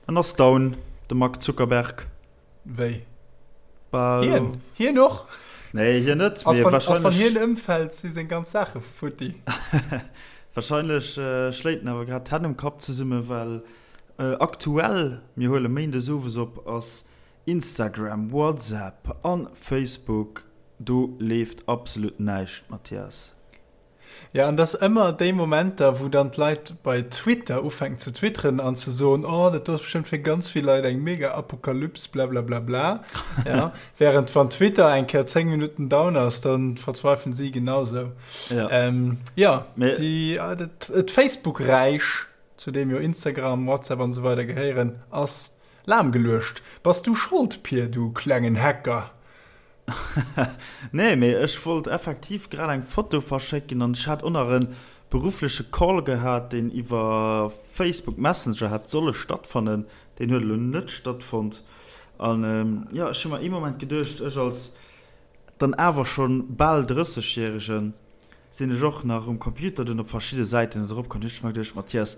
En ass down, de Mark Zuckerberg. Wéi? Hien? Hien och? Nee, hien net. Ass wann, ass wann hien ëmfält, si seng ganz Saache futti. Wahrscheinlech schléit en awer grad d'Hänn um Kapp zesumme, well aktuell, mir huele méindes owes op, ass Instagram, WhatsApp a Facebook, do leeft absolut näischt, Mathias. Jo, an dass ëmmer déi Momenter, wou dann d'Leit bei Twitter ufänken ze twitteren an ze soen, oh, dat do ass bestëmmt fir ganz vill Leit eng mega Apokalyps, blablablabla, ja, während wann Twitter eng Kéier 10 Minutten down ass, dann verzweifeln si genausou. Ja, ähm, ja déi, äh, dat, d'Facebook-Räich, zu deem jo Instagram, WhatsApp an esou weider gehéieren, ass lahmgeluecht. Bass du Schold, Pir, du klengen Hacker? Nee, mee ech wollt effektiv grad eng Foto verschécken an ech hat och nach e beruffleche Call gehat, deen iwwer Facebook Messenger hätt solle stattfannen. Deen huet elo net stattfonnt. An jo, ech hu mer ee Moment geduecht, ech als dann awer scho bal Drëssegjäregen, sinn ech och nach um Computer dunn op verschidde Säiten net eropkomm. Hunn ech mer geduecht, Mathias,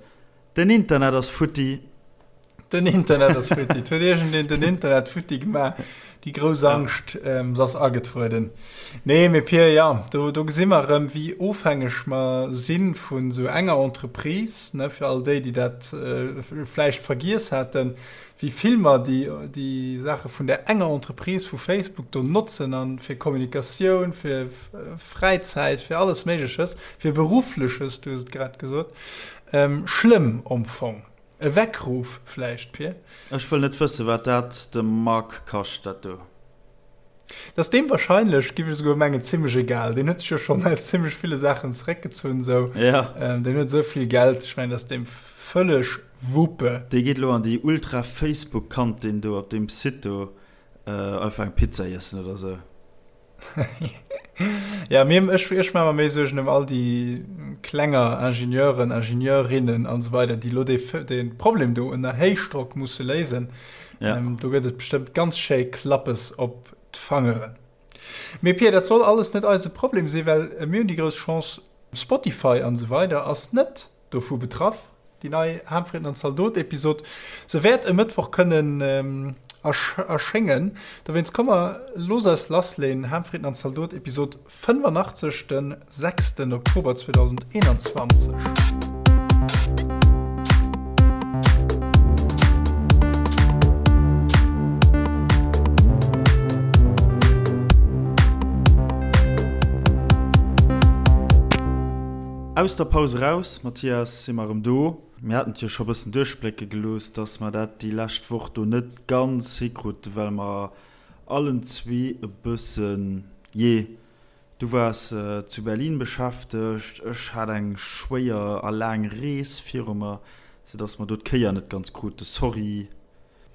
Den Internet ass futti. Den Internet ass futti. Et huet iergendeen den Internet futti gemaach. Déi grouss Angscht, se ass agetrueden. Nee, mee Pir, jo, do, do gesi mer erëm, wéi ofhängeg mer si vun esou enger Entreprise, ne, fir all déi, déi dat vläicht vergiess haten, wéi vill mer déi, déi Saache vun där enger Entreprise, vu Facebook do notzen a fir Kommunikatioun, fir Fräizäit, fir alles Méigleches, fir Beruffleches, du hues et grad gesot. Schlëmm am Fong. E Weckruf vläicht, Pir? Ech wëll net wëssen, wat dat dem Marc kascht, dat do. Dat ass deem wahrscheinlech, giff ech esouguer mengen, zimmlech egal. Deen huet sech jo schonn aus zimmlech ville Saachen zeréckgezunn esou. Ja. Deen huet esou vill Geld, ech mengen, dat ass deem vëlleg Wuppe. Dee geet elo an déi Ultra-Facebook-Kantin do op deem Site do einfach eng Pizza iessen oder esou. Ja, mir, ech, ech maache mer méi Suergen ëm all déi klenger Ingenieuren, Ingenieurinnen an esou weider, déi elo dee, dee Problem do ënner Héichdrock musse léisen. Ja. Ähm, do gëtt et bestëmmt ganz schéi Klappes op d'Fangeren. Mee Pia, dat soll alles net eise Problem sinn, well mir hunn déi grouss Chance, Spotify an esou weider ass net Dovu betraff, déi nei Harmfrieden an Zaldot-Episod. Se wäert e Mëttwoch kënnen erschéngen. Dowéinst komm mer looss eis lassleen, Harmfrieden an Zaldot Episod 85, de 6 Oktober 2021. Aus der Paus eraus, Mathias, si mer erëm do. Mir haten et jo scho bëssen duerchblécke gelooss, dass mer dat déi lescht Woch do net ganz hikruten, well mer allen zwee e bëssen, jee, du waars zu Berlin beschäftegt, ech hat eng schwéier a laang Rees viru mer, soudass mer do d'Kéier net ganz kruten. Sorry.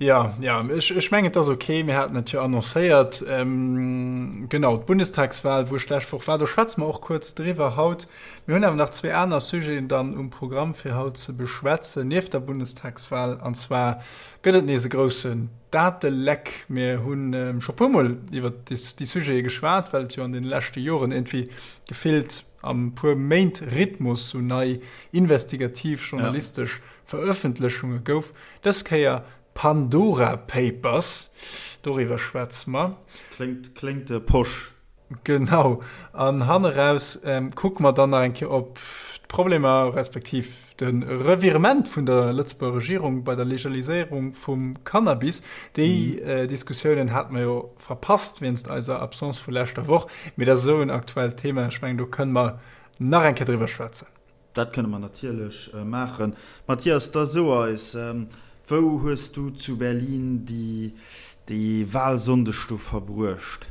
Jo, jo, ech, ech mengen, et ass ok. Mir haten et jo annoncéiert. Genau, d'Bundestagswahl, wou ech d'lescht Woch war, do schwätze mer och kuerz driwwer haut. Mir hunn awer nach zwee aner Sujeten dann um Programm, fir haut ze beschwätzen, nieft der Bundestagswahl. An zwar gëtt et nees e groussen Dateleck. Mir hu scho puermol iwwer déi Sujete geschwat, well et jo an deene leschte Joren iergendwéi gefillt am puer Méint Rhythmus sou nei investigativ journalistesch Verëffentlechunge gouf. Dës Kéier Pandora Papers, doriwwer schwätze mer. Kléngt, kléngt posch. Genau. An hanneraus kucke mer dann nach eng Kéier op d'Problemer, respektiv de Revirement vun der Lëtzebuerger Regierung bei der Legaliséierung vum Cannabis. Déi Diskussiounen hate mer jo verpasst wéinst eiser Absence vu leschter Woch. Mee dat ass esou en aktuellt Thema, ech mengen, do kënne mer nach eng Kéier driwwer schwätzen. Dat kënne mer natierlech maachen. Mathias, da so eis, wou hues du zu Berlin déi Wahlsonndeg do verbruecht?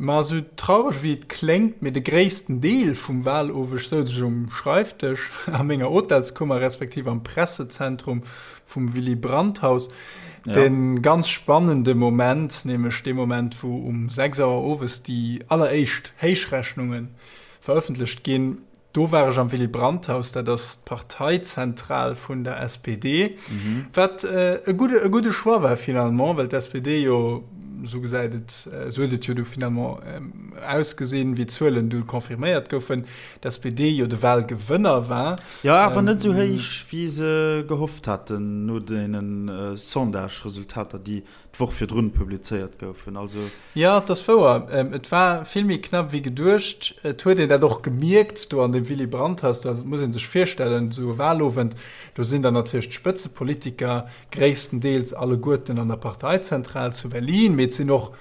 Ma esou traureg wéi et kléngt, mee de gréissten Deel vum Wahloweg souz ech um Schreifdësch a menger Hotelskummer, respektiv am Pressezentrum vum Willy Brandt Haus. De ganz spannende Moment, nämlech dee Moment, wou um 6 Auer owes déi alleréischt Héichrechnunge verëffentlecht ginn. Do war ech am Willy Brandt Haus, dat ass d'Parteizentral vun der SPD, wat e gudde e gudde Choix war finalement, well d'SPD jo Esou gesäit et, esou huet et jo du finalement ausgesinn, wéi d'Zuelen du confirméiert goufen, d'SPD jo de Wahlgewënner war. Jo, awer net esou héich, wéi se gehofft haten no deene Sondage-Resultater, déi d'Woch virdrun publizéiert goufen. Also. Jo, et ass wouer, et war vill méi knapp wéi geduecht. Et huet een dat och gemierkt do an dem Willy Brandt-Haus. Do ass, et muss ee sech virstellen, esou e Wahlowend, do sinn dann natierlech d'Spëtzepolitiker gréisstendeels alleguerten an der Parteizentral zu Berlin, mee et sinn och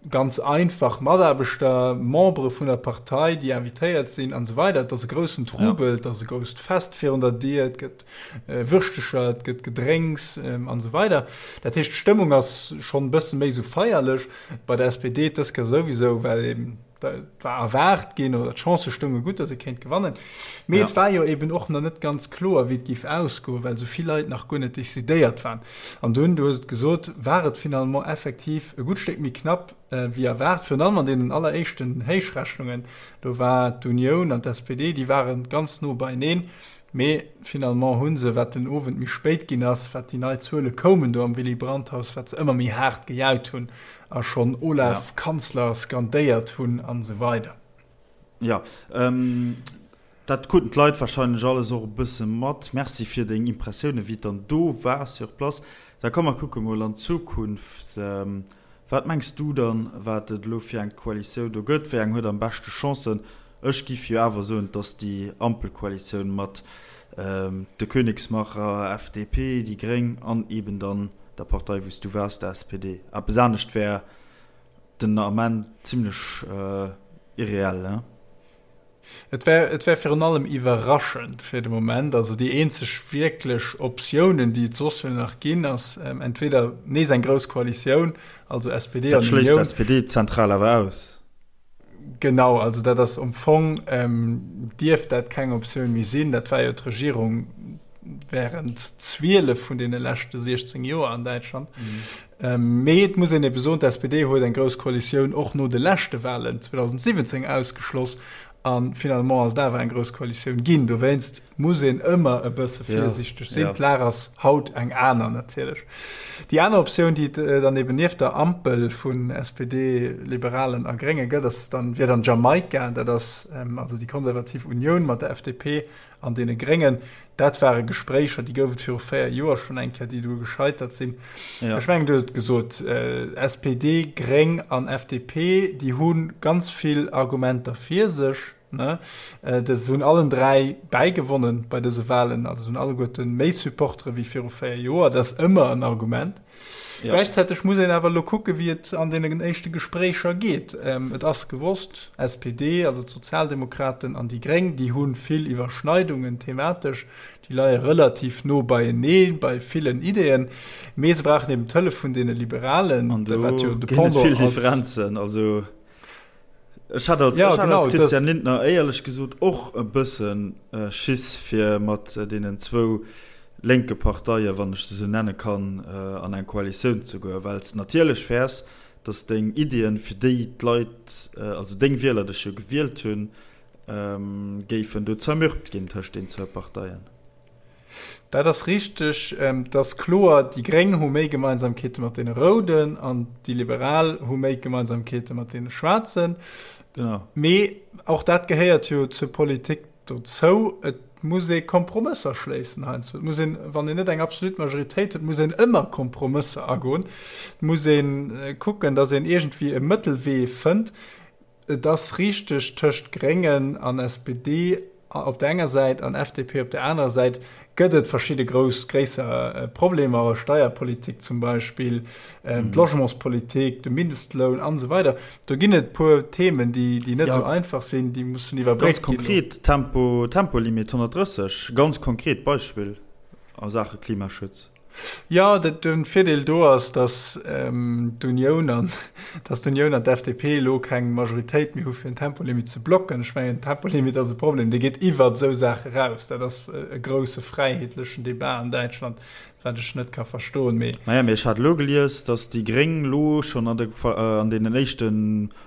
ganz einfach Mataarbechter, Membere vun der Partei, déi invitéiert sinn an esou weider. Et ass e groussen Trubel, et ass e grousst Fest virun der Dier, et gëtt Würschtecher, et gëtt Gedrénks an esou weider. Dat heescht, d'Stëmmung ass schonn e bësse méi esou feierlech. Bei der SPD dës Kéier souwisou, well eben et war erwaart ginn oder d'Chancë stounge gutt, datt ee kéint gewannen. Mee et war jo eben och nach net ganz kloer, wéi et géif ausgoen, well esou vill Leit nach guer net decidéiert waren. An dunn, du hues et gesot, war et finalement effektiv e gutt Stéck méi knapp wéi erwaart, virun allem an deenen alleréischten Héichrechnungen. Do war d'Unioun an d'SPD, déi ware ganz no beieneen. Mee finalement hu se, wat den Owend méi spéit ginn ass, wat déi nei Zuele koumen do am Willy Brandt-Haus, wat se ëmmer méi haart gejaut hunn a schonn Olaf, Kanzler skandéiert hunn an esou weider. Jo, dat kruten d'Leit warscheinlech alles och e bësse mat. Merci fir deng Impressiounen, wéi et dann do war sur place. Da komm mer kucke mol an d'Zukunft. Wat mengs du dann, wat et elo fir eng Koalitioun do gëtt? Wéi eng huet am beschte Chancen? Ech giff jo awer soen, dass déi Ampelkoalitioun mat de Königsmacher, FDP, déi Gréng an eben dann der Partei wou s du waars, der SPD. Eppes anescht wär den Ament zimlech irreell, ne? Et wär, et wär virun allem iwwerraschend fir de Moment. Also déi eenzeg wierklech Optiounen, déi et soss jo nach ginn, ass entweder nees eng grouss Koalitioun, also SPD an Unioun. Dat schléisst d'SPD-Zentral awer aus. Genau, also dat ass am Fong, dierft dat keng Optioun méi sinn. Dat war jo d'Regierung während 12 vun deene leschte 16 Joer an Däitschland. Mee et muss een ebe soen, d'SPD huet eng grouss Koalitioun och no de leschte Wahlen 2017 ausgeschloss a finalement ass et awer eng grouss Koalitioun ginn. Dowéinst muss een ëmmer e bësse virsiichteg sinn. D'Lag ass haut eng aner natierlech. Déi aner Optioun, déi et dann eben nieft der Ampel vun SPD, Liberalen a Grénge gëtt, ass dann, wier dann Jamaika. Dat ass also déi konservativ Unioun mat der FDP an deene Gréngen. Dat ware Gespréicher, déi gouf et viru 4 Joer schonn eng Kéier, déi du gescheitert sinn. Ja. Ech mengen, du hues et gesot, SPD, Gréng an FDP, déi hu ganz vill Argumenter fir sech. Ne? Dës hunn allen 3 bäigewonnen bei dëse Wahlen, also hunn alleguerte méi Supportere wéi viru 4 Joer. Dat ass ëmmer en Argument. Ja. Gläichzäiteg muss een awer elo kucke wéi et an deenen éischte Gespréicher geet. Et ass gewosst, SPD, also d'Sozialdemokraten an déi Gréng, déi hu vill Iwwerschneidungen thematesch, déi leie relativ no beienee bei villen Ideeën, mee se brauchen eben d'Hëllef vun deene Liberalen, An do wat jo de ginn et Pendant vill ass. Differenzen. Also ech hat als, ja, ech hat als Christian Lindner éierlech gesot och e bësse Schiss fir mat deenen zwou lénke Parteien, wann ech se esou nenne kann, an eng Koalitioun ze goen, well s de natierlech fäers, datt deng Iddien, fir déi d'Leit, also deng Wieler dech jo gewielt hunn, géifen do zermürbt ginn tëscht den zwou Parteien. Dat ass richteg. Et ass kloer, déi Gréng hu méi Gemeinsamkeete mat deene Rouden an déi Liberal hu méi Gemeinsamkeete mat deene Schwaarzen. Genau. Mee och dat gehéiert jo zur Politik dozou. Et muss ee Kompromësser schléissen heiansdo. Et muss een, wann een net eng absolut Majoritéit huet, muss een ëmmer Kompromësser agoen. Et muss ee kucken, datt een iergendwéi e Mëttelwee fënnt. Et ass richteg, tëscht Gréngen an SPD op der enger Säit an FDP op der anerer Säit gëtt et verschidde grouss, gréisser Problemer, Steierpolitik zum Beispill, d'Logementspolitik, de Mindestloun an esou weider. Do ginn et e puer Themen, déi, déi net esou einfach sinn, déi mussen iwwerbréckt ginn. Ganz konkret, Tempo, Tempolimit 130, ganz konkret Beispill a Saache Klimaschutz. Jo, de Virdeel do ass, datt d'Unioun an datt d'Unioun an d'FDP elo keng Majoritéit méi hu fir en Tempolimit ze blocken. Ech mengen, Tempolimit ass e Problem, dee geet iwwert esou Saache eraus. Dat ass e grousse fräiheetlechen Debat an Däitschland, wat ech net ka verstoen. Mee. Naja, mee ech hat elo gelies, datt déi Gréng elo schonn an de an deenen éischte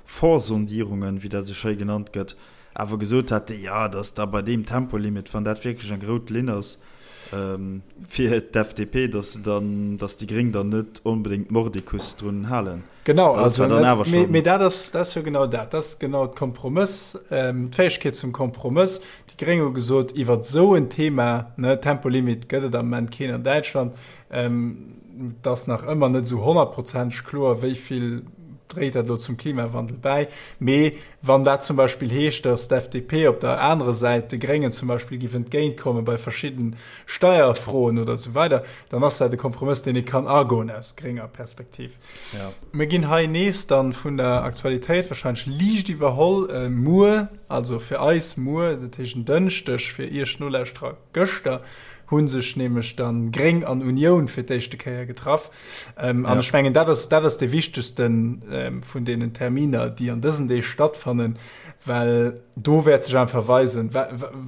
Vorsondierungen, wéi dat esou schéi genannt gëtt, awer gesot hat, jo, datt da bei deem Tempolimit, wann dat wierklech eng rout Linn ass, fir d'FDP, datt se dann, datt déi Gréng dann net onbedéngt mordicus drun halen. Genau, also dann awer schon. Mee dat ass, dat ass jo genau dat. Dat ass genau d'Kompromëss, ähm, d'Fäegkeet zum Kompromëss. Déi Gréng hu gesot, iwwer esou en Thema, ne, Tempolimit gëtt et am Moment keen an Däitschland, ähm, et ass nach ëmmer net esou honnertprozenteg kloer, wéi vill dréit dat elo zum Klimawandel bäi. Mee wann dat zum Beispill heescht, datt d'FDP op der anerer Säit de Gréngen zum Beispill giff entgéintkomme bei verschidden Steierfroen oder esou weider, dann ass dat e Kompromëss, deen ee kann agoen aus grénger Perspektiv. Ja. Mir ginn hei nees dann vun der Aktualitéit wahrscheinlech liicht iwwerholl. Äh, muer, also fir eis muer, dat heescht en Dënschdeg, fir iech Nolauschterer gëschter, hu sech nämlech dann Gréng an Unioun fir d'éischte Kéier getraff. Ähm, an ja. ech mengen, dat ass, dat ass de wichtegsten ähm, vun deenen Terminer, déi an dësen Deeg stattfannen, well do wäert sech einfach weisen,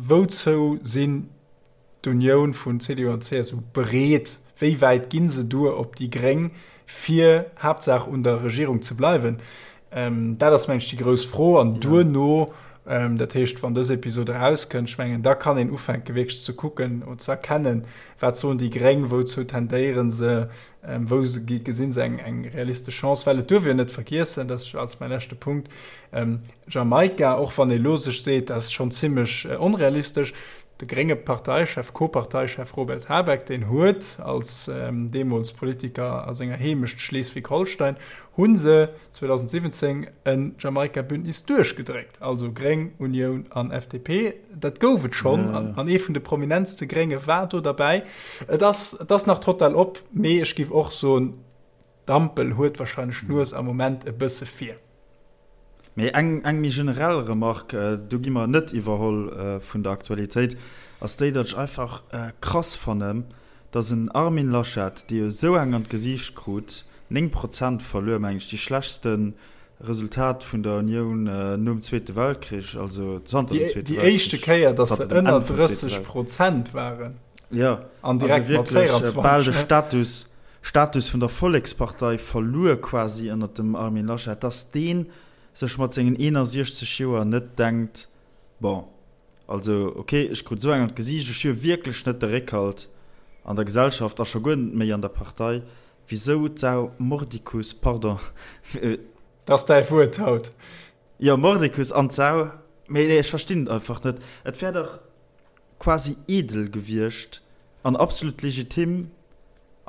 wouzou sinn d'Unioun vun CDU an CSU bereet? Wéi wäit gi se duer op déi Gréng, fir Haaptsaach un der Regierung ze bleiwen? Dat ass, meng ech, déi grouss Fro. An duerno, dat heescht, wann dës Episod erauskënnt, ech mengen, da kann een ufänke wierklech ze kucken oder ze erkennen, wat soen déi Gréng, wouzou tendéiere se, wou gesinn se eng realistesch Chance. Well et duerf een net vergiessen, dat ass als mäi leschte Punkt, Jamaika, och wann ee elo sech seet, dat ass schonn zimmlech onrealistesch, De grénge Parteichef, Co-Parteichef Robert Habeck, deen huet als deemools Politiker a senger Heemecht Schleswig-Holstein, hu se 2017 en Jamaika-Bündnis duerchgedréckt, also Gréng, Unioun an FDP. Dat gouf et schonn an ee vun de prominentste Grénge war do derbäi. Et ass, et ass nach total op, mee ech géif och soen, D'Ampel huet wahrscheinlech d'Nues am Moment e bësse vir. Mee eng eng méi generell Remarque, do gi mer net iwwerholl vun der Aktualitéit, ass déi, datt ech einfach krass fannen, datt en Armin Laschet, dee jo esou eng an d'Gesiicht krut, 9 Prozent verluer, mengen ech, déi schlechtste Resultat vun der Unioun nom Zweete Weltkrich, also zanter dem Zweete Weltkrich. Déi éischte Kéier, datt se ënner 30 Prozent waren. Jo, also wierklech bal de Status. Status vun der Vollekspartei verluer quasi ënnert dem Armin Laschet, dass dee sech mat sengen 61 Joer net denkt, bon, also ok, ech krut esou eng an d'Gesiicht, ech hu jo wierklech net de Réckhalt an der Gesellschaft a scho guer net méi an der Partei, wisou d'Sau mordicus, pardon. Dat ass däi Wuert haut. Jo, mordicus an d'Sau, mee nee, ech verstinn et einfach net. Et wär dach quasi edel gewiescht an absolut legitim,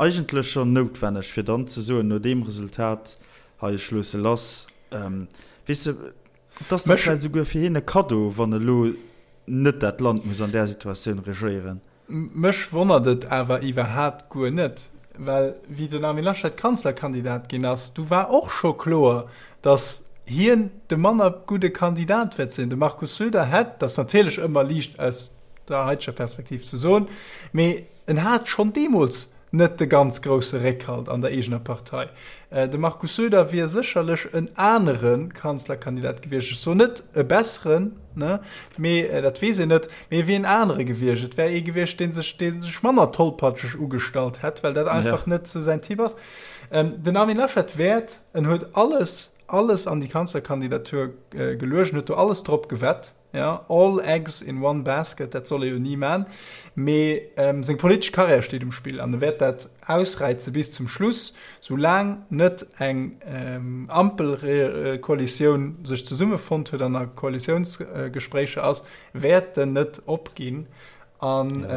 eigentlech schonn noutwenneg, fir dann ze soen, no deem Resultat hei, ech loosse lass. Weess de, et ass da vläicht esouguer fir hien e Kaddo, wann elo net dat Land muss an där Situatioun regéieren. Mech wonnert et awer iwwerhaat guer net, well wéi den Armin Laschet Kanzlerkandidat ginn ass, du war och scho kloer, datt hien de manner gudde Kandidat wäert sinn. De Markus Söder hätt, dat ass natierlech ëmmer liicht aus der haiteger Perspektiv ze soen, mee en hat schonn deemools net de ganz grousse Réckhalt an der eegener Partei. De Markus Söder wier sécherlech en anere Kanzlerkandidat gewiescht, ech soen net e besseren, mee dat weess een net, mee e wier en anere gewiescht. Et wär ee gewiescht, dee sech, dee sech manner tollpatscheg ugestallt hätt, well dat einfach net esou säin Typ ass. Den Armin Laschet wäert, en huet alles, alles an déi Kanzlerkandidatur geluecht, en huet do alles drop gewett, Ja, all eggs in one basket, dat soll ee jo ni man, mee seng politesch Karriär steet um Spill an e wäert dat ausräize bis zum Schluss, sou laang net eng Ampelkoalitioun sech zesummefonnt huet an a Koalitiounsgespréicher ass, wäert en net opginn. An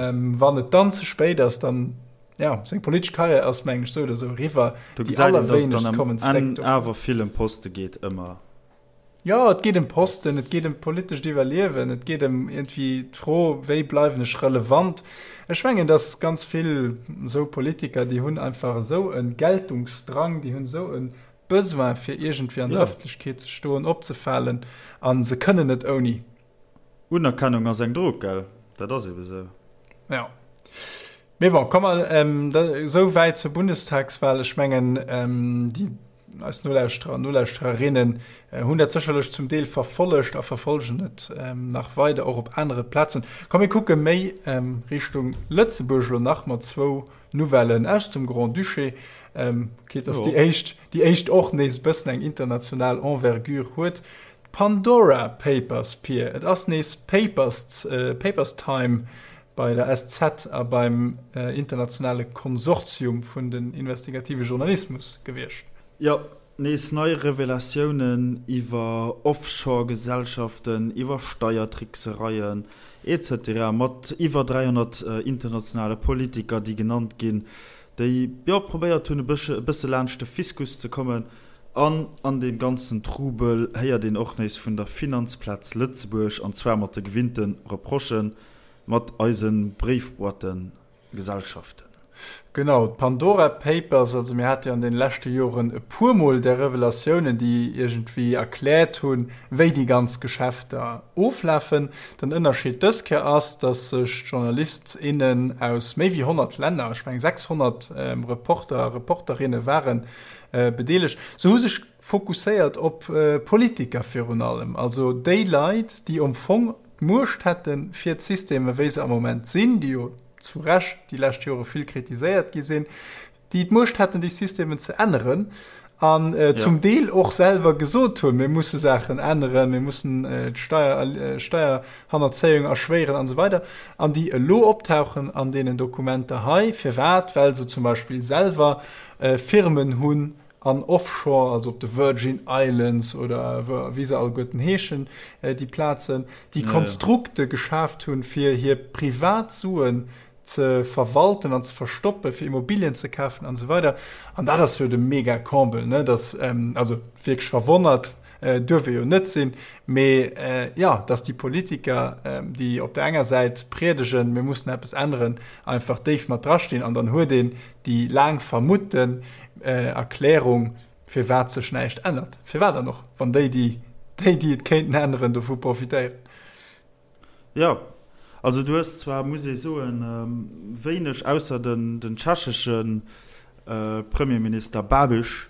wann et dann ze spéit ass, dann, ja, seng politesch Karriär ass mengen ech sou oder sou eriwwer. Do gesäit een, dass et dann am Enn awer vill ëm Poste geet, ëmmer. Jo, et geet ëm Posten, et geet ëm politescht Iwwerliewen, et geet ëm iergendwéi d'Fro, wéi bleiwen ech relevant. Ech mengen, datt ganz vill esou Politiker, déi hunn einfach esou e Geltungsdrang, déi hunn esou e Besoin, fir iergendwéi an der Ëffentlechkeet ze stoen, opzefalen, a se kënnen net ouni. Unerkennung ass eng Drog, gell? Dat ass ebe sou. Jo. Mee bon, komm mer esou wäit zur Bundestagswahl. Ech mengen, déi eis Nolauschterer an Nolauschtererinnen hunn dat sécherlech zum Deel verfollegt a verfollegen et nach weider och op anere Plazen. Komm mir kucke méi Richtung Lëtzebuerg elo nach mat zwou Nouvellen aus dem Grand-Duché. Quitte dass déi éischt, déi éischt och nees e bëssen eng international Envergure huet. D'Pandora Papers, Pir, et ass nees Papers, Papers Time bei der SZ a beim internationale Konsortium vun den investigative Journalismus gewiescht. Jo. Nees nei Revelatiounen iwwer Offshore-Gesellschaften, iwwer Steiertricksereien, etc. Mat iwwer 300 internationale Politiker, déi genannt ginn, déi, jo, probéiert hunn, e bësse laanscht de Fiskus ze kommen. An an deem ganzen Trubel héiert een och nees vun der Finanzplaz Lëtzebuerg, an zwar mat de gewinnte Reprochen, mat eise Bréifboîten. Gesellschaften. Genau, d'Pandora Papers, also mir hate jo an deene leschte Joren e puermol där Revelatiounen, déi iergendwéi erkläert hunn, wéi déi ganz Geschäfter oflafen. Den Ënnerscheed dës Kéier ass, datt sech d'Journalist, innen aus méi wéi 100 Länner, ech mengen 600 Reporter a Reporterinne ware bedeelegt, se hu sech fokusséiert op Politiker virun allem, also déi Leit, déi am Fong d'Muecht hätten, fir d'Systemer, wéi se am Moment sinn, déi jo zu Recht déi lescht Jore vill kritiséiert gi sinn, déi d'Muecht hätten, déi Systemen ze änneren an zum Deel och selwer gesot hunn, mir musse Saachen änneren, mir mussen d'Steier, Steierhannerzéiung erschwéieren an esou weider, an déi elo optauchen an deenen Dokumenter hei. Firwat? Well se zum Beispill selwer Firmen hunn, An Offshore, also op de Virgin Islands oder wéi se alleguerten heeschen, déi Plazen, déi Konstrukte geschaaft hunn, fir hir privat Suen ze verwalten an ze verstoppen, fir Immobilien ze kafen an esou weider. An dat ass jo de mega Comble, ne, dass, also wierklech verwonnert duerf ee jo net sinn, mee jo, dass déi Politiker, déi op der enger Säit priedegen, mir mussen eppes änneren, einfach déif mat drastinn an dann huet een déi laang vermutten Erklärung, firwat sech näischt ännert. Firwat dann och, wann déi, déi, déi, déi et kéinten änneren, dovu profitéieren? Jo, also du hues zwar, muss ee soen, wéineg, ausser den, den tschechesche Premierminister Babiš,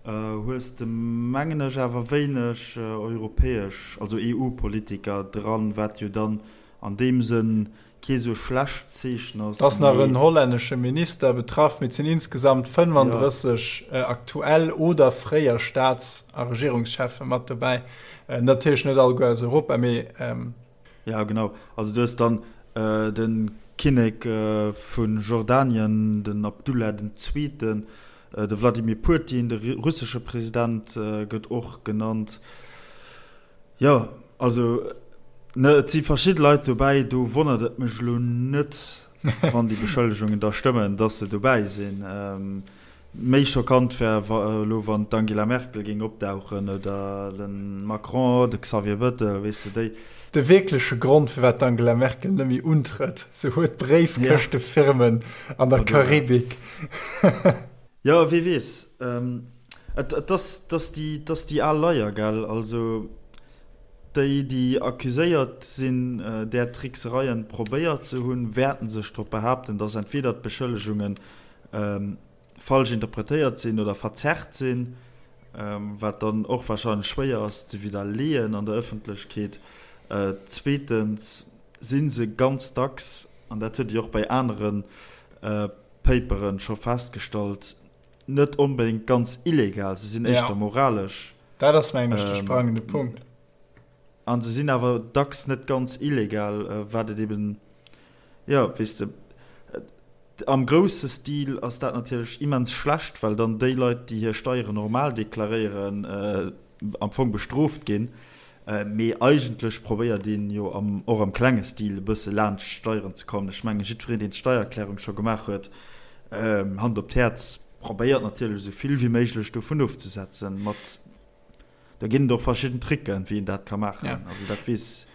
hues de, mengen ech, awer wéineg europäesch, also EU-Politiker dran, wat jo dann an deem Sënn kee sou schlecht Zeechen ass. Et ass nach en hollännesche Minister betraff, mee et sinn insgesamt 35 aktuell oder fréier Staats a Regierungscheffe mat dobäi. Natierlech net alleguer aus Europa, mee. Jo, genau. Also du hues dann de Kinnek vu Jordanien, den Abdullah den Zweeten, de Wladimir Putin, de russesche President gëtt och genannt. Jo, also ne, et si verschidde Leit dobäi, do wonnert et mech elo net, wann déi Beschëllegungen da stëmmen, datt se dobäi sinn. Méi schockant wär elo, wann d'Angela Merkel géing opdauchen oder de Macron, de Xavier Bettel, weess de, déi. De wierkleche Grond, firwat d'Angela Merkel net méi untrëtt, se huet Bréifkëschtefirmen an der Karibik. Jo, wie weess. Et ass déi al Leier, gell? Also déi, déi accuséiert sinn, där Tricksereien probéiert ze hunn, wäerten sech drop behaapten, datt entweder d'Beschëllegunge falsch interpretéiert sinn oder verzerrt sinn, wat dann och warscheinlech schwéier ass ze widderleeën an der Ëffentlechkeet. Zweetens si se ganz dacks, an dat huet Dir och bei anere Paperen scho festgestallt, net onbedéngt ganz illegal, se sinn éischter moralesch. Dat ass, mengen ech, de sprangende Punkt. A se sinn awer dacks net ganz illegal, wat et eben, jo, weess de, am grousse Stil ass dat natierlech immens schlecht, well dann déi Leit, déi hir Steieren normal deklaréieren, am Fong bestrooft ginn. Mee eigentlech probéiert een jo am, och am klenge Stil e bësse laanscht d'Steieren ze kommen. Ech mengen, jiddwereen, deen d'Steiererklärung scho gemaach huet, Hand op d'Häerz, probéiert natierlech esou vill wéi méiglech dovun ofzesetzen. Mat, do ginn et och verschidden Tricken, wéi een dat ka maachen. Also dat weess,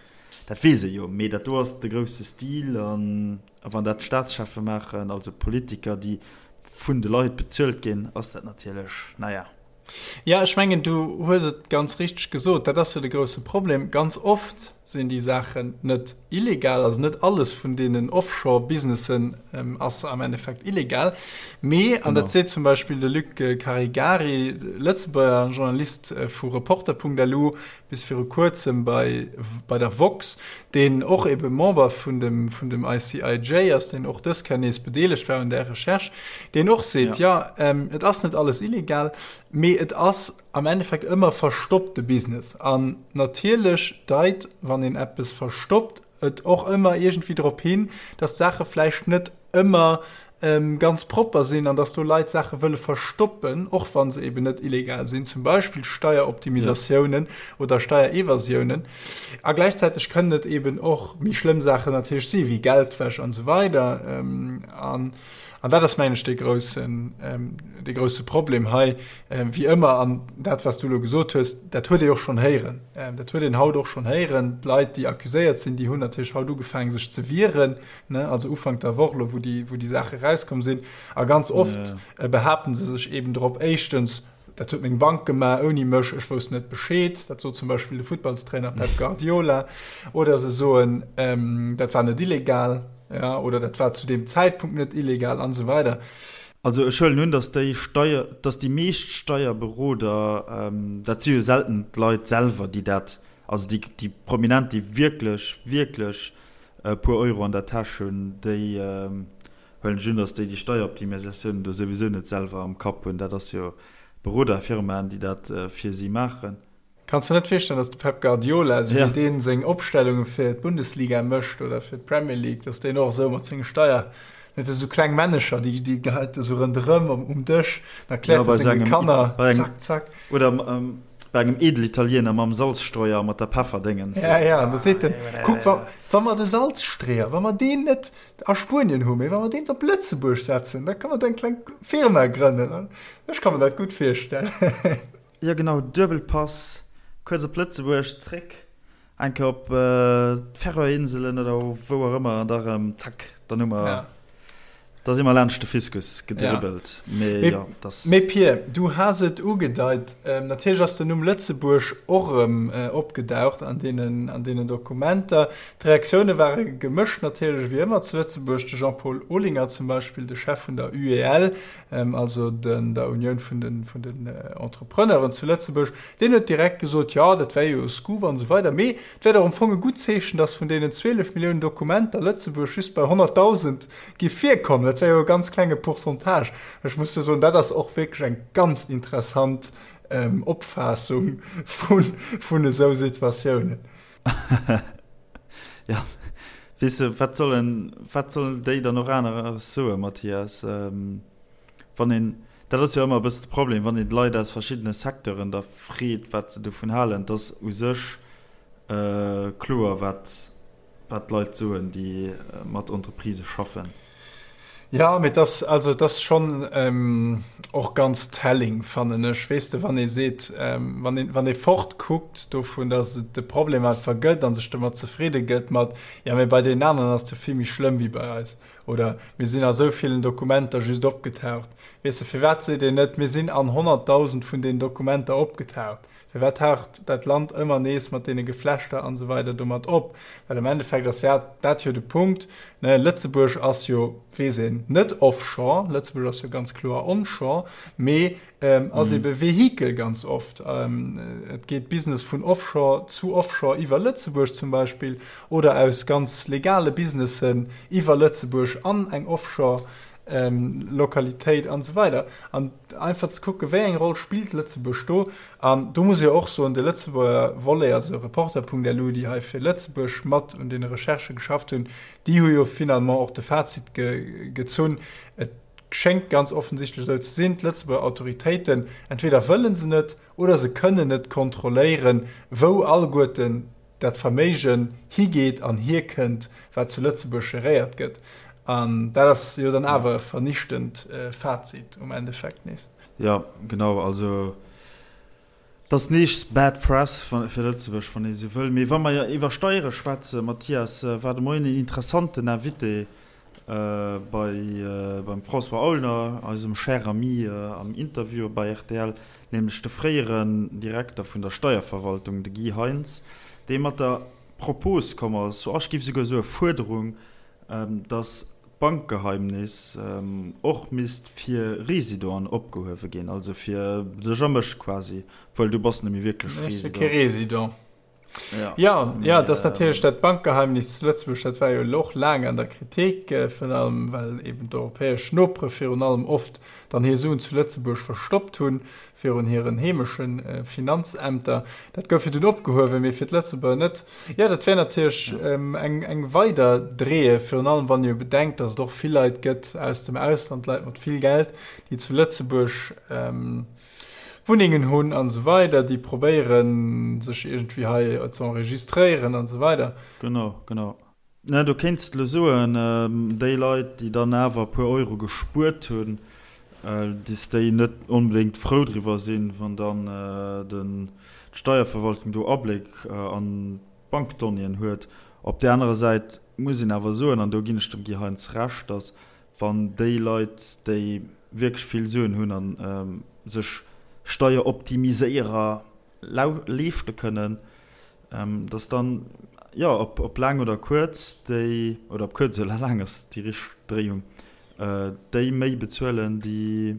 dat weess ee jo. Mee dat do ass de grousse Stil. An wann dat d'Staatscheffe maachen, also Politiker, déi vun de Leit bezuelt ginn, ass dat natierlech, naja. Ja, ech mengen, du hues et ganz richteg gesot, dat ass jo de grousse Problem. Ganz oft sinn déi Saachen net illegal, also net alles vun deenen Offshore-Businessen ass am Endeffekt illegal. Mee, an dat seet zum Beispill de Luc Caregari, Lëtzebuerger Journalist vu Reporter.lu, bis viru kuerzem bei, bei der Vox, deen och ebe Member vun dem, vun dem ICIJ ass, deen och dës Kéier nees bedeelegt war un där Recherche, deen och seet, jo, et ass net alles illegal, mee et ass am Endeffekt ëmmer verstoppte Business. An natierlech deit, wann een eppes verstoppt, et och ëmmer iergendwéi drop hin, dass d'Saache vläicht net ëmmer. ganz propper sinn an dass do Leit Saache wëlle verstoppen, och wa se eben net illegal sinn, zum Beispill Steieroptimisatiounen oder Steierevasiounen. A gläichzäiteg kënnen et eben och méi schlëmm Saachen natierlech si wéi Geldwäsch an esou weider. An an dat ass, mengen ech, dee groussen, dee grousse Problem hei, wéi ëmmer. An dat, wat s du elo gesot hues, dat huet ee och schonn héieren. Dat huet een haut och schonn héieren. D'Leit, déi accuséiert sinn, déi hunn natierlech haut ugefaangen, sech ze wieren. ne, also Ufank der Woch lo, wou déi, wou déi Saache rauskomm sinn. A ganz oft ja. behaapten se sech eben drop, éischtens, dat huet meng Bank gemaach ouni mech, ech wousst net Bescheed, dat sot zum Beispill de Futtballstrainer Pep Guardiola. Oder se soen, ähm, dat war net illegal, ja, oder dat war zu deem Zäitpunkt net illegal an esou weider. Also ech huelen un, datt déi Steier, datt déi meescht Steierberoder, ähm, dat si jo selten d'Leit selwer, déi dat, also déi, déi Prominent, déi wierklech, wierklech e puer Euro an der Täsch hunn, déi huelen ech un, datt déi déi Steieroptimisatiounen do souwisou net selwer am Kapp hunn. Dat ass jo Beroderfirmaen, déi dat fir si maachen. Kanns de net virstellen, datt de Pep Guardiola, esou wéi deen seng Opstellunge fir d'Bundesliga mécht oder fir d'Premier League, datt deen och esou mat senge Steier, net esou kleng Männecher, déi déi geheit esou ronderëm um Dësch, dann erkläert e senge Kanner, zack, zack. Oder Bei engem Edelitaliener mam Salzstreuer a mat der Pefferdéngens. Ja, ja, an da seet en, Kuck, wa, wa mer de Salzstreeër, wa mer deen net a Spuenien hu, mee wa mer deen op Lëtzebuerg setzen, da ka mer do eng kleng Firma grënnen. Ech ka mer dat gutt virstellen. Jo, genau, Duebelpass, kuerz op Lëtzebuerg, zréck. Eng Kéier op d'Färöerinselen oder wou och ëmmer an da rëm zack, dann hu mer, da si mer laanscht de Fiskus gedribbelt. Mee jo, dass. Mee Pir, du has et ugedeit, natierlech ass den Numm Lëtzebuerg och erëm opgedaucht an deenen, an deenen Dokumenter. D'Reaktioune ware gemëscht natierlech, wéi ëmmer zu Lëtzebuerg. De Jean-Paul Olinger zum Beispill, de Chef vun der UEL, also den, der Unioun vun den, vun den Entrepreneuren zu Lëtzebuerg, deen huet direkt gesot, jo, dat wär jo e Scoop an esou weider, mee et wär dach am Fong e gutt Zeechen, datt vun deenen 12 Milliounen Dokumenter Lëtzebuerg just bei 100.000 giff virkommen. Dat wär jo e ganz klenge Pourcentage. Ech muss jo soen, dat ass och wierklech eng ganz interessant Opfaassung vun, vun esou Situatiounen. Jo, weess de, wat sollen, wat sollen déi dann och aneres soen, Mathias? Wann een, dat ass jo ëmmer e bëssen de Problem, wann een d'Leit aus verschiddene Secteuren da freet, wat se dovun halen, et ass u sech kloer, wat, wat d'Leit soen, déi mat Entreprisë schaffen. Jo, mee et ass, also et ass schonn och ganz telling, fannen ech, weess de, wann ee seet, wann een, wann ee fortkuckt dovun, datt et de Problem einfach gëtt a sech domat zefridde gëtt mat, jo, mee bei deenen aneren ass et jo vill méi schlëmm wéi bei eis oder mir sinn a sou villen Dokumenter just opgetaucht. Weess de, firwat seet een net, mir sinn an 100.000 vun deenen Dokumenter opgetaucht? Firwat taucht dat Land ëmmer nees mat deene Geflechter an esou weider domat op? Well am Endeffekt ass ja dat jo de Punkt, ne, Lëtzebuerg ass jo, weess een, net offshore, Lëtzebuerg ass jo ganz kloer onshore, mee ass ebe Vehikel ganz oft. Et geet Business vun offshore zu offshore iwwer Lëtzebuerg zum Beispill oder aus ganz legale Businessen iwwer Lëtzebuerg an eng offshore Lokalitéit an esou weider. An einfach ze kucken, wéi eng Roll spillt Lëtzebuerg do. An do muss ee jo och soen, de Lëtzebuerger Volet, also Reporter.lu, déi hei fir Lëtzebuerg mat un deene Recherchë geschafft hunn, déi hu jo finalement och de Fazit gezunn, et schéngt ganz offensichtlech esou ze sinn, d'Lëtzebuerger Autoritéiten, entweder wëlle se net oder se kënnen net kontrolléieren, wou alleguerten dat Verméigen higeet an hierkënnt, wat zu Lëtzebuerg geréiert gëtt. An dat ass jo dann awer e vernichtend Fazit um Endeffekt nees. Jo, genau. Also et ass nees bad press fir Lëtzebuerg, wann ee sou wëll. Mee wa mer iwwer Steiere schwätzen, Mathias, war de Moien een interessanten Invité bei beim François Aulner, eisem cher ami, am Interview bei rtl, nämlech de fréieren Direkter vun der Steierverwaltung, de Guy Heintz, dee mat der Propos komm ass, ech géif souguer soe Fuerderung, datt d'Bankgeheimnis och misst fir Residenten opgehuewe ginn, also fir dech a mech quasi, obwuel du bass net méi wierklech Resident. Ech si kee Resident. Ja, ja, ja dat ass natierlech dat Bankgeheimnis zu Lëtzebuerg, dat war jo elo och laang an der Kritik, virun allem well eben d'europäesch Nopere virun allem oft dann hir Suen zu Lëtzebuerg verstoppt hunn virun hiren heemesche Finanzämter. Dat gouf jo dunn opgehuewen, mee fir d'Lëtzebuerger net. Jo, dat wär natierlech eng, eng weider Dreeë, virun allem wann ee jo bedenkt, datt et och vill Leit gëtt aus dem Ausland, Leit mat vill Geld, déi zu Lëtzebuerg Wunnengen hunn an esou weider, déi probéieren, sech iergendwéi hei ze enregistréieren an esou weider. Genau, genau. Mä do kéints de elo soen, déi Leit, déi dann awer e puer Euro gespuert hunn, dass déi net onbedéngt frou driwwer sinn, wann dann d'Steierverwaltung do Abléck an d'Bankdonnéeën huet. Op där anerer Säit muss een awer soen, an do ginn ech dem Guy Heintz Recht, dass wann déi Leit, déi wierklech vill Suen hunn a sech Steieroptimiséierer leeschte kënnen, Dass dann, jo, ob laang oder kuerz, déi, oder ob kuerz oder laang ass déi richteg Dréiung, déi méi bezuelen, déi,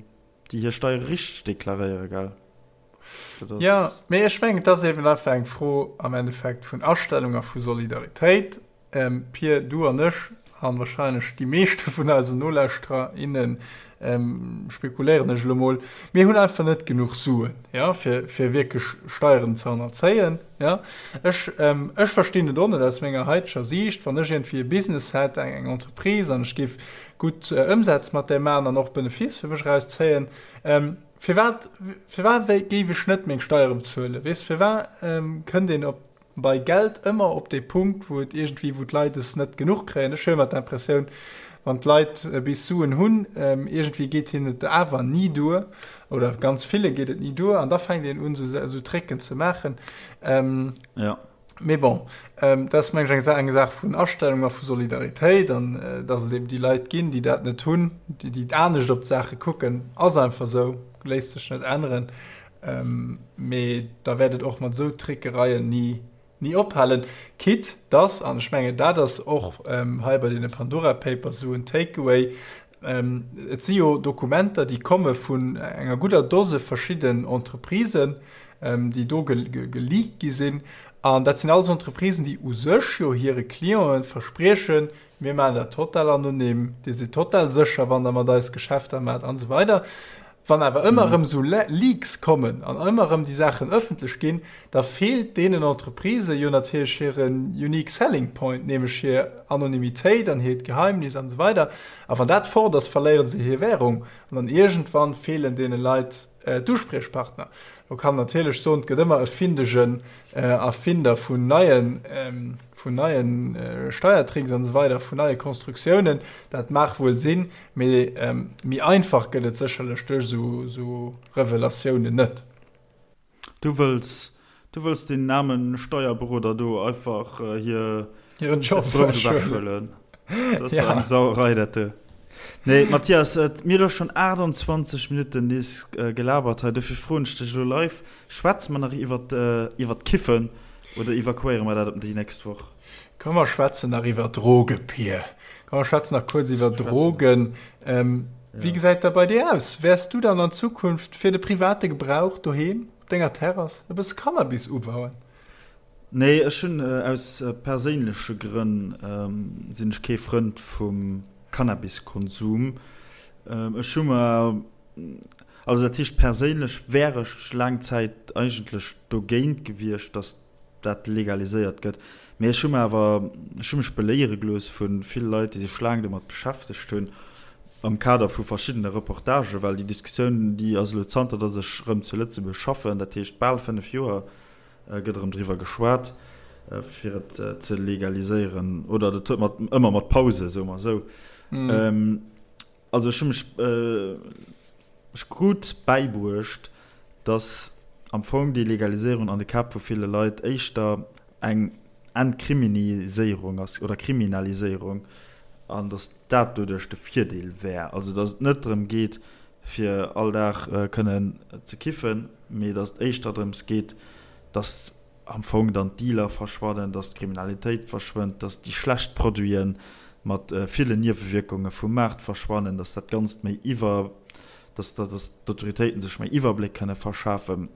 déi hir Steiere richteg deklaréieren, gell? Dat ass. Jo, mee ech mengen, et ass eben einfach eng Fro am Endeffekt vun Astellung a vu Solidaritéit. Pir, du an ech, an wahrscheinlech déi meeschte vun eisen Nolauschterer, innen, spekuléieren ech elo mol, mir hunn einfach net genuch Suen, jo, fir, fir wierklech Steieren ze hannerzéien, jo. Ech, ech verstinn et och net aus menger haiteger Siicht, wann ech iergendwéi e Business hätt, eng, eng Entreprise, an ech géif gutt Ëmsätz mat där maachen an och Benefice fir mech erauszéien, firwat, firwat géif ech net meng Steiere bezuelen, weess? Firwat kënnt een op bei Geld ëmmer op dee Punkt, wou et iergendwéi, wou d'Leit es net genuch kréien. Ech hu ëmmer d'Impressioun, wann d'Leit bis Suen hunn, iergendwéi geet hinnen et awer ni duer oder ganz ville geet et ni duer an da fänkt een un, esou Tricken ze maachen. Jo. Mee bon, dat ass, meng ech, eng Saach vun Astellung a vu Solidaritéit an datt et eben déi Leit ginn, déi dat net hunn, déi anescht op d'Saache kucken, ass einfach esou, léisst sech net änneren. Mee da wäert et och mat esou Trickereien ni, ni ophalen. Quitte dass, an ech mengen, dat ass och hei bei deene Pandora Papers esou en Takeaway, et si jo Dokumenter, déi komme vun enger gudder Dose verschidden Entreprisen, déi do geleakt gi sinn. An dat sinn alles Entreprisen, déi u sech jo hire Clienten verspriechen, Mir maachen dat total anonym, Dir sidd total sécher, wann Der mat eis Geschäfter maacht an esou weider. Wann awer ëmmer erëm esou Leaks kommen an ëmmer erëm déi Saachen ëffentlech ginn, da feelt deenen Entreprisë jo natierlech hire unique selling point, nämlech hir Anonymitéit an hiert Geheimnis an esou weider. A wann dat fort ass, verléiere se hir Währung an dann iergendwann feelen deene Leit d'Uspriechpartner. Lo kann een natierlech soen, et gëtt ëmmer e findegen Erfinder vun neien, vun neien Steiertricks an esou weider, vun neie Konstruktiounen. Dat mag wuel sinn, mee méi einfach gëtt et sécherlech duerch esou Revelatiounen net. Du wëlls, du wëlls deenen aarmen Steierberoder do einfach hir hiren Job Brout ewechhuelen. Dat ass dach eng Sauerei, dat do. Nee, Mathias, mir hu lo schonn 28 Minutten nees gelabert hei, dofir froen ech dech elo live, Schwätze mer nach iwwer, iwwer d'Kiffen oder evakuéiere mer dat op déi nächst Woch? Komm mer schwätzen nach iwwer Droge, Pir. Komm mer schwätzen nach kuerz iwwer Drogen. Wéi gesäit dat bei dir aus? Wäers du dann an Zukunft fir de private Gebrauch doheem op denger Terrass e bësse Cannabis ubauen? Nee, ech hunn aus perséinleche Grënn sinn ech kee Frënd vum Cannabiskonsum. Ech hu mer, also dat heescht perséinlech wär ech laang Zäit eigentlech dogéint gewiescht, datt dat legaliséiert gëtt. Mee ech hu mer awer, ech hu mech beléiere gelooss vu ville Leit, déi sech laang domat beschäftegt hunn, am Kader vu verschiddene Reportagen, well déi Diskussioun, déi ass elo zanter datt ech erëm zu Lëtzebuerg schaffen, dat heescht bal 5 Joer, gëtt erëm driwwer geschwat, fir et ze legaliséieren. Oder dat huet mat, ëmmer mat Pause, soe mer esou. Also ech hu mech, ech krut bäibruecht, dass am Fong déi Legaliséierung an de Käpp vu ville Leit éischter eng Entkriminiséierung ass oder Kriminaliséierung an dass dat doduerch de Virdeel wär. Also dass et net drëm geet, fir all Dag kënnen ze kiffen, mee dass et éischter drëms geet, dass am Fong dann d'Dealer verschwannen, dass d'Kriminalitéit verschwënnt, dass déi schlecht Produite mat villen Niewewierkunge vum Maart verschwannen, dass dat Ganzt méi iwwer, dass d'Autoritéiten sech méi Iwwerbléck kënne verschafen.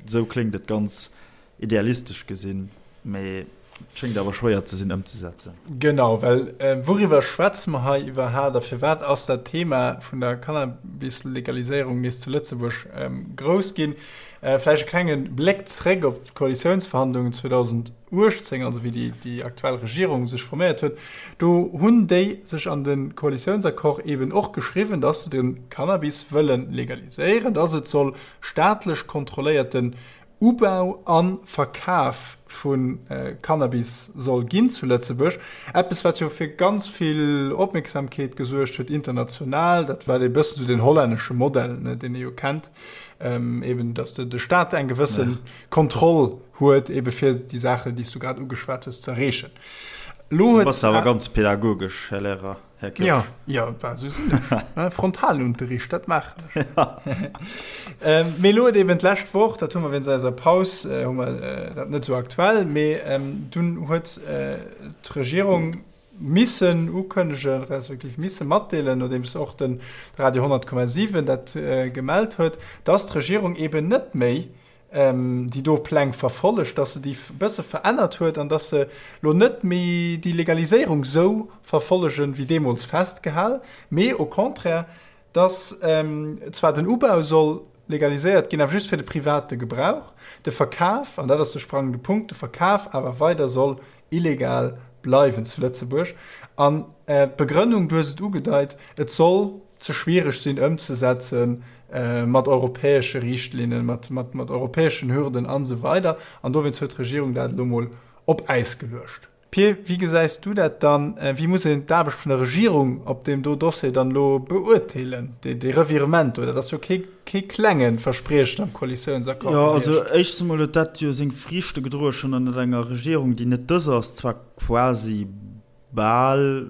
Esou kléngt et ganz idealistesch gesinn. Mee et schéngt awer schwéier ze sinn ëmzesetzen. Genau, well wouriwwer schwätze mer hei iwwerhaapt a firwat ass dat Thema vun der Cannabis-Legaliséierung nees zu Lëtzebuerg grouss ginn? Vläicht e klenge Bléck zréck op d'Koalitiounsverhandlungen 2018, also wéi déi aktuell Regierung sech forméiert huet. Do hunn déi sech an de Koalitiounsaccord eeben och geschriwwen, datt se de Cannabis wëlle legaliséieren, datt et soll staatlech kontrolléierten Ubau a Verkaf vu Cannabis soll ginn zu Lëtzebuerg. Eppes, wat jo fir ganz vill Opmierksamkeet gesuergt huet international. Dat war e bëssen esou den hollännesche Modell, ne, deen ee jo kennt, eben datt de Staat eng gewësse Kontroll huet, ebe fir déi Saachen, déi s du grad ugeschwat hues, ze erreechen. Elo huet. Du bass awer ganz pädagogesch, Här Lehrer. Här Kirsch. Ja, ja, bah, sou sinn ech. Frontalunterricht, dat maachen ech. Ähm, mee elo huet eben d'lescht Woch, dat hu mer wéinst eiser Paus, äh, hu mer äh, dat net sou aktuell, mee ähm, dunn huet äh, d'Regierung missen ukënnegen, respektiv misse matdeelen, nodeems och den Radio 100,7 dat äh, gemellt huet, dass d'Regierung eben net méi déi do Pläng verfollegt, dass se déi e bësse verännert huet an dass se lo net méi déi Legaliséierung sou verfollegen, wéi deemools festgehal, mee au contraire, dass zwar den Ubau soll legaliséiert ginn, awer just fir de private Gebrauch, de Verkaf, an dat ass de sprangende Punkt, de Verkaf awer weider soll illegal bleiwen zu Lëtzebuerg. An d'Begrënnung, du hues et ugedeit, et soll ze schwiereg sinn ëmzesetze mat europäesche Richtlinnen, mat, mat, mat europäeschen Hürden an esou weider. An dowéinst huet d'Regierung dat elo mol op Äis geluecht. Pir, wéi gesäis du dat dann? Wéi muss een d'Aarbecht vun der Regierung op deem do Dossier dann elo beurteelen, dee, dee Revirement do? Dat ass jo kee, kee klenge Verspriechen am Koalitiounsaccord Jo, also gewiescht. éischtens emol huet dat jo seng Friichte gedroe schonn ënnert enger Regierung, déi net dës ass, zwar quasi Bal,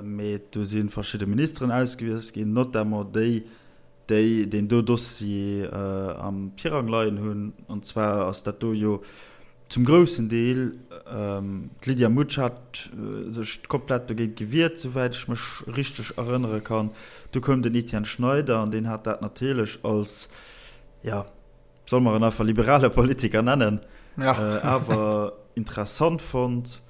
mee do si verschidde Ministeren ausgewiesst ginn, notamment déi, déi deen do Dossier am Pirang leien hunn. An zwar ass dat do jo zum groussen Deel, d'Lydia Mutsch hat sech komplett dogéint gewiert, souwäit ech mech richteg erënnere kann. Du koum den Etienne Schneider an deen hat dat natierlech als, jo, solle mer en einfach liberale Politiker nennen, awer interessant fonnt.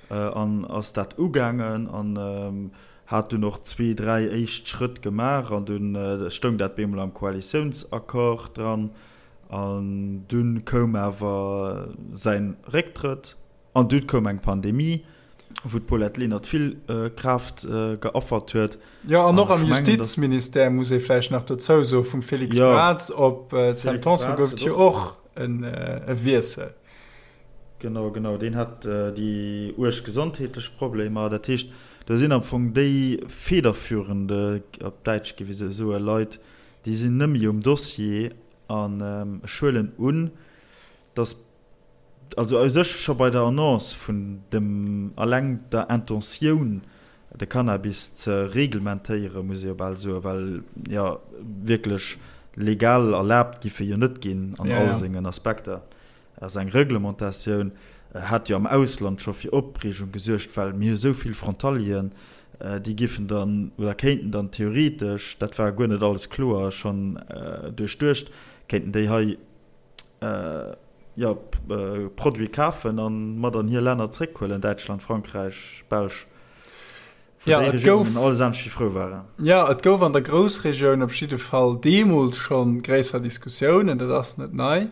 An ass dat ugaangen an hat dunn och zwee, dräi éischt Schrëtt gemaach an dunn stoung dat bemol am Koalitiounsaccord dran. An dunn koum awer säi Récktrëtt an dunn koum eng Pandemie, wou d'Paulette Lenert vill Kraaft geaffert huet. Jo, an och am Justizministère, muss ee vläicht nach dozou soen, vum Félix Braz op d'Sam Tanson gouf et jo och e Wiessel. Genau, genau, deen hat déi uerg gesondheetlech Problemer. Dat heescht, do sinn am Fong déi federführende, op Däitsch géif ee sou soen, Leit, déi sinn net méi um Dossier. An ech huelen un, datt, also u sech scho bei der Annonce vun dem, alleng der Intentioun, de Cannabis ze reglementéieren, muss ee jo bal soen, well jo wierklech legal erlaabt giff e jo net ginn an all sengen Aspekter. Also eng Reglementatioun hat jo am Ausland scho fir Opreegung gesuergt, well mir hu sou vill Frontalieren, déi giffen dann oder kéinten dann theoretesch, dat war guer net alles kloer schonn duerchduecht, kéinten déi hei jo Produite kafen a mat an hir Länner zréckhuelen, Däitschland, Frankräich, Belsch, wou déi Regiounen alles anescht wéi frou waren. Jo, et gouf an der Groussregioun op jidde Fall deemools scho gréisser Diskussiounen, dat ass net nei.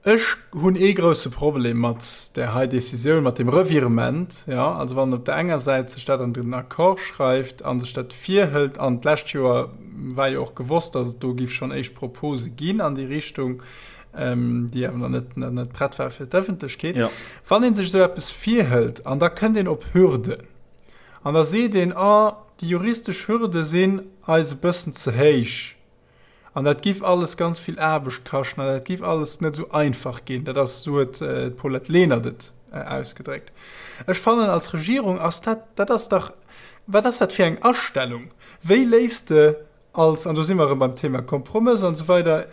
Ech hunn ee grousse Problem mat där hei Decisioun, mat deem Revirement. Jo, also wann op der enger Säit sech dat an den Accord schreift a sech dat virhëlt, an d'lescht Joer war jo och gewosst, datt et do géif schonn éischt Propose ginn an déi Richtung, déi awer nach net, nach net prett war fir d'Ëffentlechkeet. Wann ee sech esou eppes virhëlt an da kënnt een op Hürden an da seet een, Oh, déi juristesch Hürde sinn eis e bëssen ze héich. An dat giff alles ganz vill Aarbecht kaschten an dat giff alles net esou einfach ginn. Dat ass, esou huet d'Paulette Lenert et ausgedréckt. Ech fannen, als Regierung ass dat, dat ass dach, wat ass dat fir eng Astellung? Wéi léisst de. Als, an do si mer erëm beim Thema Kompromëss an esou weider,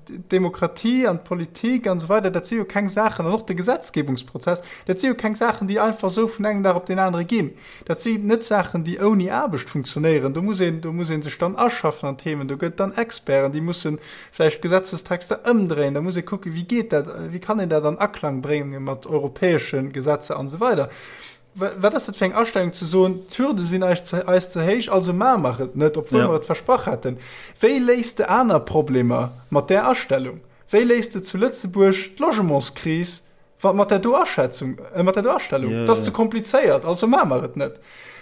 d'Demokratie an d'Politik an esou weider, dat si jo keng Saachen, an och de Gesetzgebungsprozess, dat si jo keng Saachen, déi einfach esou vun engem Dag op deen anere ginn. Dat si net Saachen, déi ouni Aarbecht funktionéieren. Do muss een, do muss ee sech dann aschaffen an d'Themen, do gëtt et dann Experten, déi musse vläicht Gesetzestexter ëmdréien, da muss ee kucken, wéi geet dat, wéi kann een dat an Aklang brénge mat europäesche Gesetzer an esou weider. Wat ass dat fir eng Astellung ze soen, d'Hürde sinn eis ze, eis ze héich, also maache mer et net, obwuel ja. mer et versprach haten. Wéi léis de aner Problemer mat där Astellung? Wéi léis de zu Lëtzebuerg d'Logementskris wa mat där do Aschätzung, äh, mat där do Astellung? Ja, dat ass ze komplizéiert, also maache mer et net.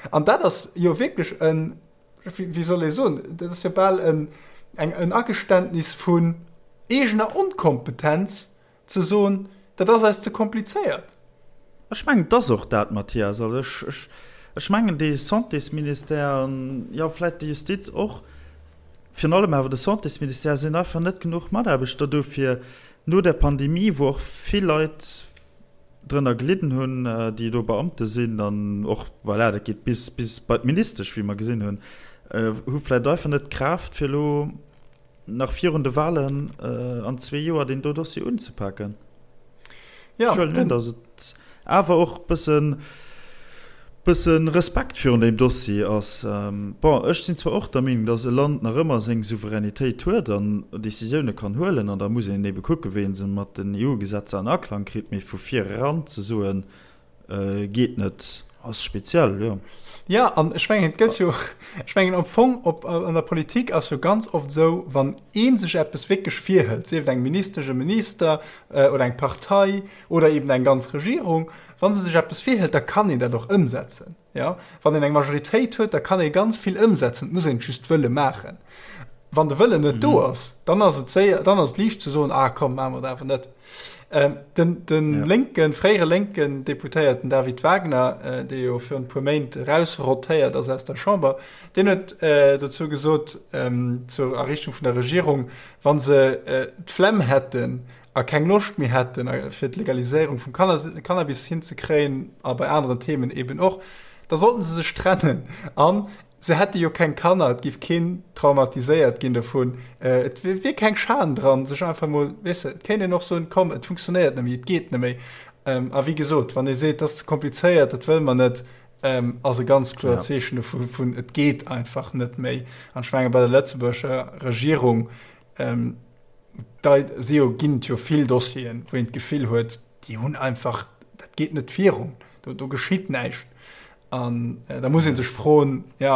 An dat ass jo wierklech en, wéi soll ee soen, dat ass jo bal en, eng, en Ageständnis vun eegener Onkompetenz, Ze soen, dat ass eis ze komplizéiert. Ech mengen, et ass och dat, Mathias. Also ech, ech, ech mengen, dee Santésministère an, jo, vläicht déi Justiz och, virun allem awer de Santésministère, sinn einfach net genuch Mataarbechter do, fir no der Pandemie, wou och vill Leit drënner gelidden hunn, déi do Beamte sinn an och, voilà, dat geet bis, bis bei d'Ministesch, wéi mer gesinn hunn, hu vläicht einfach net d'Kraaft, fir elo nach virun de Wahlen an zwee Joer deen do Dossier unzepaken. Ja, Ech huelen un, datt et awer och bëssen, bëssen Respekt virun deem Dossier ass. Bon, ech sinn zwar och der Meenung, datt e Land nach ëmmer seng Souveränitéit huet an Décisioune kann huelen, an da muss een ebe kucken, wéi ee se mat den EU-Gesetzer an Aklang kritt, mee vu vir eran ze soen, Geet net, ass speziell, jo. Ja, an ech mengen, et gëtt jo, ech mengen am Fong op, an der Politik ass jo ganz oft esou, wann ee sech eppes wierklech virhëlt, sief et eng Ministesch, e Minister oder eng Partei oder eben eng ganz Regierung, wa se sech eppes virhëlt, da kann een dat och ëmsetzen. Jo, wann een eng Majoritéit huet, da kann ee ganz vill ëmsetzen, et muss een et just wëlle maachen. Wann de Wëllen net do ass, dann ass et séier, dann ass et liicht ze soen, ah komm, maache mer et awer net. Ähm, den den ja. lénken, fréiere lénken Deputéierten David Wagner, äh, dee jo virun e puer Méint erausrotéiert ass aus der Chamber, deen huet äh, dozou gesot, ähm, zur a Richtung vun der Regierung, wann se äh, d'Flemm hätten a keng Loscht méi hätten, äh, fir d'Legaliséierung vum Cannabis hinzekréien a bei aneren Themen eben och, da sollten se sech trennen. An Se hätte jo keng Kanner, et giff keen traumatiséiert ginn dovun, et wier keng Schan dran, sech einfach mol, weess de, et kéint een och soen, komm, et funktionéiert net méi, et geet net méi. A wéi gesot, wann ee seet, dat ass ze komplizéiert, dat wëlle mer net, ass e ganz kloert Zeechen dovu vun, et geet einfach net méi. An ech menge bei der lëtzebuergescher Regierung, da si jo, ginn et jo vill Dossieren, wou een d'Gefill huet, déi hunn einfach, dat geet net virun, do, do geschitt näischt. An da muss ee sech froen, jo,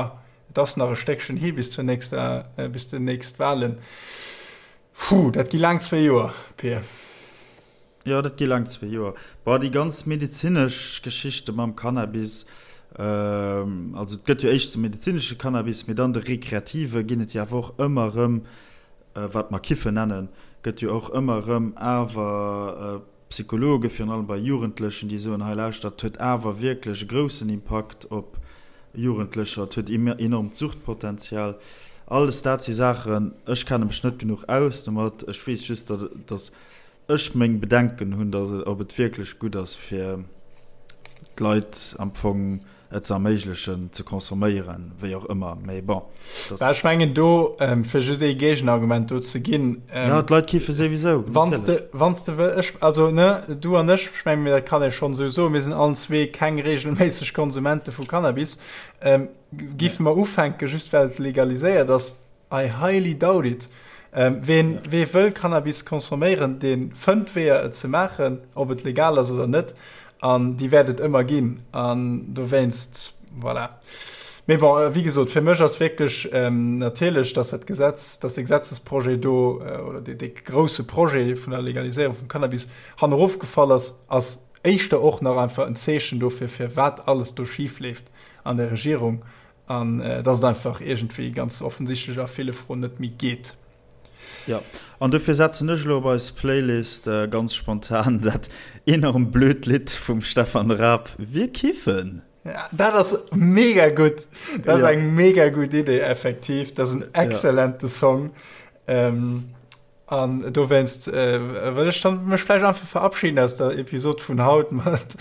et ass nach e Stéckchen hi bis zur nächster, bis déi nächst Wahlen. Puh, dat gi laang zwee Joer, Pir. Jo, dat gi laang zwee Joer. Bon, déi ganz medezinesch Geschichte mam Cannabis, also et gëtt jo éischts de medezinesche Cannabis, mee dann de rekreative ginn et jo awer och ëmmer erëm, wat mer Kiffen nennen, gëtt jo och ëmmer erëm awer Psychologe, virun allem bei Jugendlechen, déi soen, hei lauschtert, et huet awer wierklech e groussen Impakt op Jugendlecher, et huet enormt Suchtpotenzial. Alles dat si Saachen, ech kenne mech net genuch aus domat, ech weess just, datt ech meng Bedenken hunn, datt ob et wierklech gutt ass fir d'Leit am Fong et ze erméiglechen ze consomméieren, wéi och ëmmer, mee bon, dass. Bah, ech mengen do, fir just ee Géigenargument do ze ginn. Jo, d'Leit kiffe souwisou, Wann s de, wann s de wëll, ech, also ne, du an ech, ech mengen, dat kann ee schonn esou soen, mir sinn allen zwee keng reegelméisseg Konsumente vu Cannabis. Giffe mer ufänken, just well et legaliséiert ass, I highly doubt it. Ween, wee wëll Cannabis consomméieren, dee fënnt Weeër et ze maachen, ob et legal ass oder net, an déi wäert et ëmmer ginn. An dowéinst, voilà. Mee bon, wéi gesot, fir mech ass wierklech natierlech, dass dat Gesetz, dass dee Gesetzesprojet do, oder dee, dee grousse Projet vun der Legaliséierung vum Cannabis hannerofgefall ass, ass éischter och nach einfach en Zeechen dofir, firwat alles do schifleeft an der Regierung. An dass et einfach iergendwéi ganz offensichtlech a ville Froen net méi geet. Jo, an dofir setzen ech elo op eis Playlist ganz spontan dat enorm blöd Lidd vum Stefan Raab, Wir kiffen. Dat ass mega gutt. Dat ass eng mega gutt Idee, effektiv. Dat ass en exzellente Song. An dowéinst wëll ech dann mech vläicht einfach verabschieden aus der Episod vun haut mat,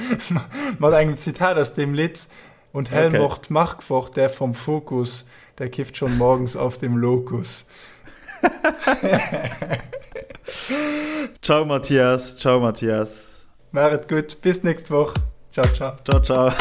mat engem Zitat aus deem Lidd. Und Helmut okay. Markwort, der vom Fokus, der kifft schon morgens auf dem Lokus. ciao Matthias, ciao Matthias. Macht et gutt, bis nächst Woch. Ciao, ciao. Ciao, ciao.